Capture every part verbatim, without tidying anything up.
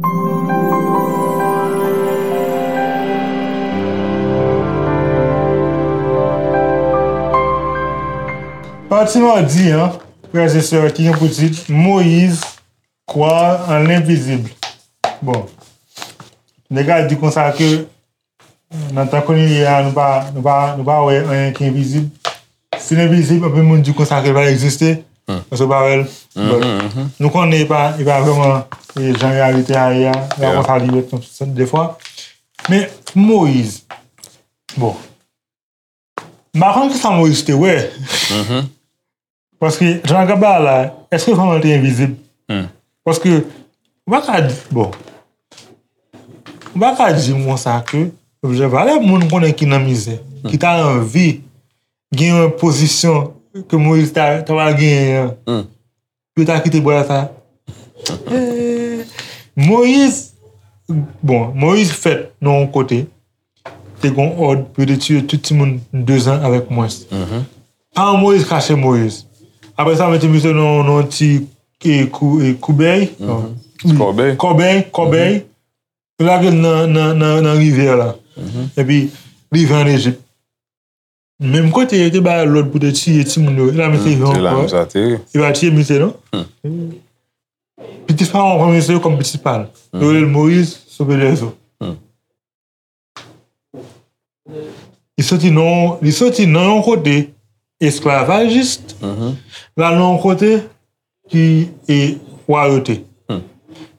Pati madi an, frè e sè, ki gen pou tit Moyiz, Croire en l'invisible. Bon, nèg la di konsa ke nan tan kounye a, nou pa, nou pa, nou pa wè anyen ki envizib. Si l envizib, anpil moun di konsa ke l pa egziste, paske w pa wè l. But, nou konnen e pa, e pa vrèman e jan reyalite a ye a, la konsa li ret konsa defwa. Men, Moyiz, bon, m pa konn kisa Moyiz te wè. Paske, jan l ap bay la, èske vrèman l te envizib? Paske, ou pa ka di, bon, ou pa ka di m konsa ke, objè valè moun konnen ki nan mizè, ki ta anvi gen yon pozisyon ke Moyiz ta, ta pral genyen an, pou yo ta kite bwa sa. Eh, Moyiz, bon, Moyiz fèt nan yon kote, te gon òd pou yo te tiye tout timoun de zan avèk mwens. Paran Moyiz kache Moyiz. Apre sa, mete misye nan, nan ti, e, kou, e, koubèy. Non. Kòbèy. Kòbèy, kòbèy. Yo lage l nan, nan, nan, nan rivyè la. Epi, rive ann Ejip. Menm kote yo te bay lòd pou te tiye timoun yo, e la misye rive ankò. E pa tiye misye, non? Pitit Farawon pran misye kòm pitit pa l. Yo rele l Moyiz, Sove Lèzo. Li soti nan, li soti nan yon kote esklavajis, l al nan yon kote ki e wayote.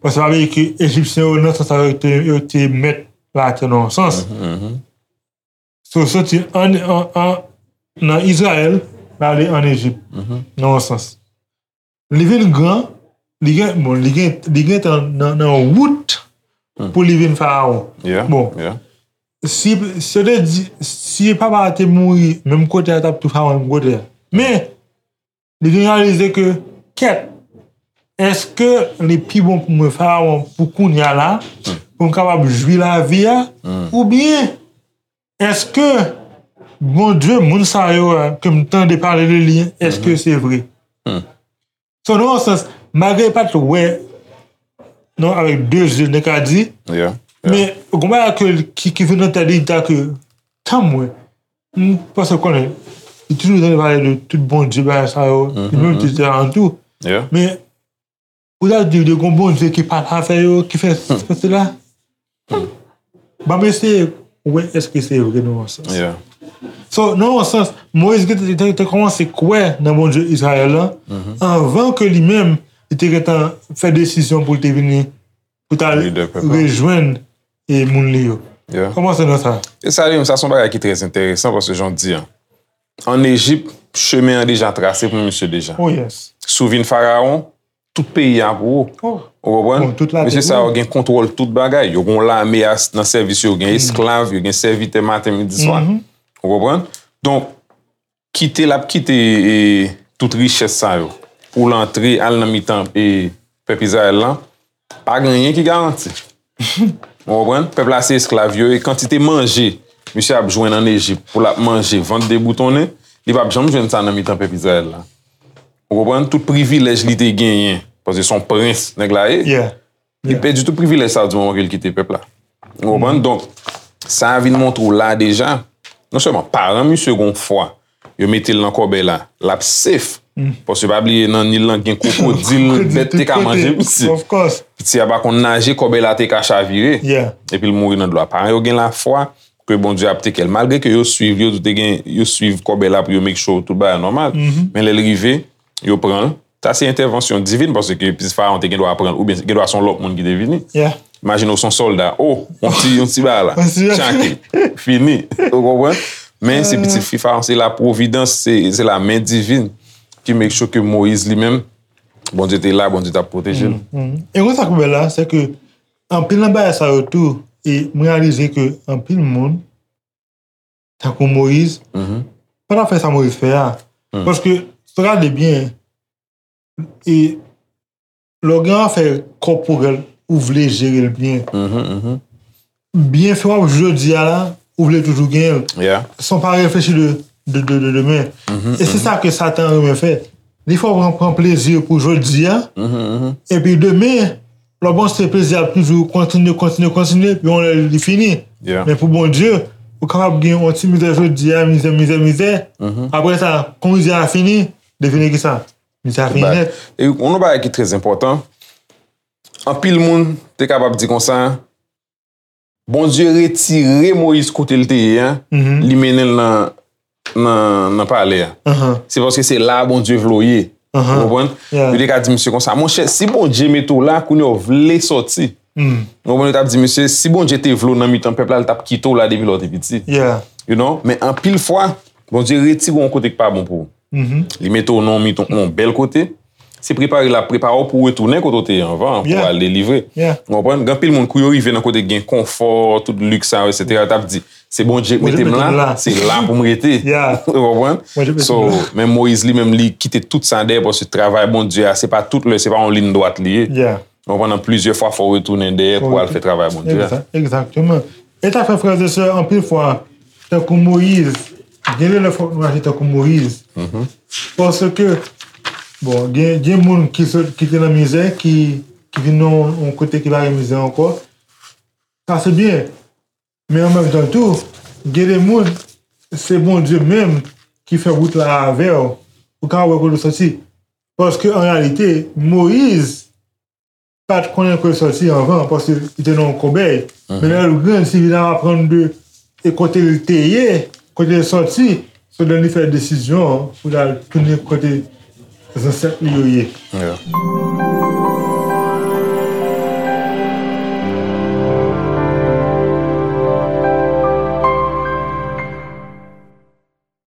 Paske sa vle di ke Ejipsyen yo, nan sans sa, yo te, yo te mèt latè nan yon sans. So, soti an, an, an, nan Izrayèl, l ale ann Ejip, nan yon sans. Li vin gran, li gen, bon, li gen, li gentan nan, nan wout pou li vin Farawon. Bon, si, si yo te di, si papa a te mouri menm kote a, t ap tou Farawon menm kote a. Men, li vin reyalize ke, kèt, èske li pi bon pou mwen Farawon pou kounye a la, pou m kapab jwi lavi a, oubyen èske Bondye, moun sa yo a, ke m tande pale de li, èske se vre? So, nan yon sans, malgre li pa t wè, non, avèk de zye, nèg ka di, men gon bagay ke, ki, ki vin nan tèt li, li ta ke, tann mwen, m panse konnen, li toujou tande pale de tout Bondye, bagay sa yo, li menm te di alantou. Men, pou ta di, de gon Bondye ki pale avè yo, ki fè, fè sela. Ban m eseye wè èske se vre nan yon sans. So, nan yon sans, Moyiz te, te, te kòmanse kwè nan Bondye Izrayèl lan, anvan ke li menm, li te gentan fè desizyon pou l te vini, pou ta rejwenn e moun li yo. Kòmanse nan sa. E sa li menm, sa se yon bagay ki trè enteresan, paske jan w di an, ann Ejip, chemen an deja trase pou misye deja. Si w vin Farawon, tout peyi a pou ou. Ou konprann? Mesye sa yo gen kontwòl tout bagay. Yo gen yon lame nan sèvis yo, gen esklav, yo gen sèvitè maten, midi, swa. Ou konprann? Donk, kite l ap kite, e, tout richès sa yo pou l antre, al nan mitan, e, pèp Izrayèl lan, pa gen anyen ki garanti. Ou konprann? Pèp la se esklav yo, e kantite manje misye ap jwenn ann Ejip pou l ap manje, vant deboutonnen, li p ap janm jwenn sa nan mitan pèp Izrayèl la. Ou konprann? Tout privilèj li te genyen, paske se yon prens nèg la ye. Li pèdi tout privilèj sa di moman ke l kite pèp la. Ou konprann? Donk, sa a vin montre w la deja, non sèlman paran misye gon fwa, yo mete l nan kòbèy la, l ap safe. Paske pa bliye nan Nil lan gen kwokodil, bèt te ka manje misye. Piti a pa konn naje, kòbèy la te ka chavire. Epi l mouri nan dlo a. Paran yo gen lafwa ke Bondye ap teke l. Malgre ke yo swiv, yo te gen, yo swiv kòbèy la pou yo make sure tout bagay nòmal. Men lè l rive, yo pran l. Sa se entèvansyon divin, paske pitit Farawon te gen dwa pran l, oubyen gen dwa se yon lòt moun ki te vini. Imajine w se yon sòlda, o, yon ti, yon ti bagay la, tchake, fini, ou konprann? Men se pitit fi Farawon, se la pwovidans, se, se la men divin ki make sure ke Moyiz li menm, Bondye te la, Bondye t ap pwoteje l. E konsa k bèl la, se ke anpil nan bagay sa yo tou, e m reyalize ke anpil moun, tankou Moyiz, pa t ap fè sa Moyiz fè a. Paske, si w gade byen, e lè w gen afè kòporèl, ou vle jere l byen. Byenfè w ap jodi a la, ou vle toujou genyen l. San w pa reflechi de, de, de, de demen. E se sa ke Satan renmen fè. Li fè w pran, pran plezi pou jodi a, epi demen, lè w panse plezi a ap toujou kontinye, kontinye, kontinye, epi yon lè li fini. Men pou Bondye, ou kapab gen yon ti mizè jodi a, mizè, mizè, mizè. Apre sa, kon mizè a fini, li vini ki sa? Mizè a fini nèt. E yon lòt bagay ki trè enpòtan, anpil moun te kapab di konsa, Bondye retire Moyiz kote l te ye a, li mennen l nan, nan, nan palè a. Se paske se la a Bondye vle w ye. Ou konprann? Yo te ka di misye konsa, monchè, si Bondye mete w la, kounye a w vle sòti. Ou konprann? Yo t ap di misye, si Bondye te vle w nan mitan pèp la, li t ap kite w la depi lè w te piti. You know? Men anpil fwa, Bondye retire w yon kote ki pa bon pou ou. Li mete w nan yon mitan, yon bèl kote. Se prepare l ap prepare w pou w retounen kote w te ye anvan, pou w al delivre. Ou konprann? Gen anpil moun, kou yo rive nan kote gen konfò, tout liks sa yo, etsetera, yo t ap di, se Bondye k mete m la, se la pou m rete. Ou konprann? So, men Moyiz li menm, li kite tout sa dèyè, paske travay Bondye a, se pa tout lè, se pa yon liy dwat li ye. Ou konprann? Plizyè fwa, fò w retounen dèyè pou w al fè travay Bondye a. Egzakteman. E sa fè, frè e sè, anpil fwa, tankou Moyiz, gen de lè fòk nou aji tankou Moyiz. Paske, bon, gen, gen moun ki sot, ki te nan mizè, ki, ki vin nan yon, yon kote ki pa gen mizè ankò. Sa se byen. Men an menm tan tou, gen de moun, se Bondye menm ki fè wout la avè w. Ou ka wè kote w soti. Paske an reyalite, Moyiz pa t konnen kote l soti anvan, paske li te nan yon kòbèy. Men lè l grandi, li vin aprann de e kote l te ye, kote l soti, se lè li fè desizyon an pou l al tounen kote zansèt li yo ye.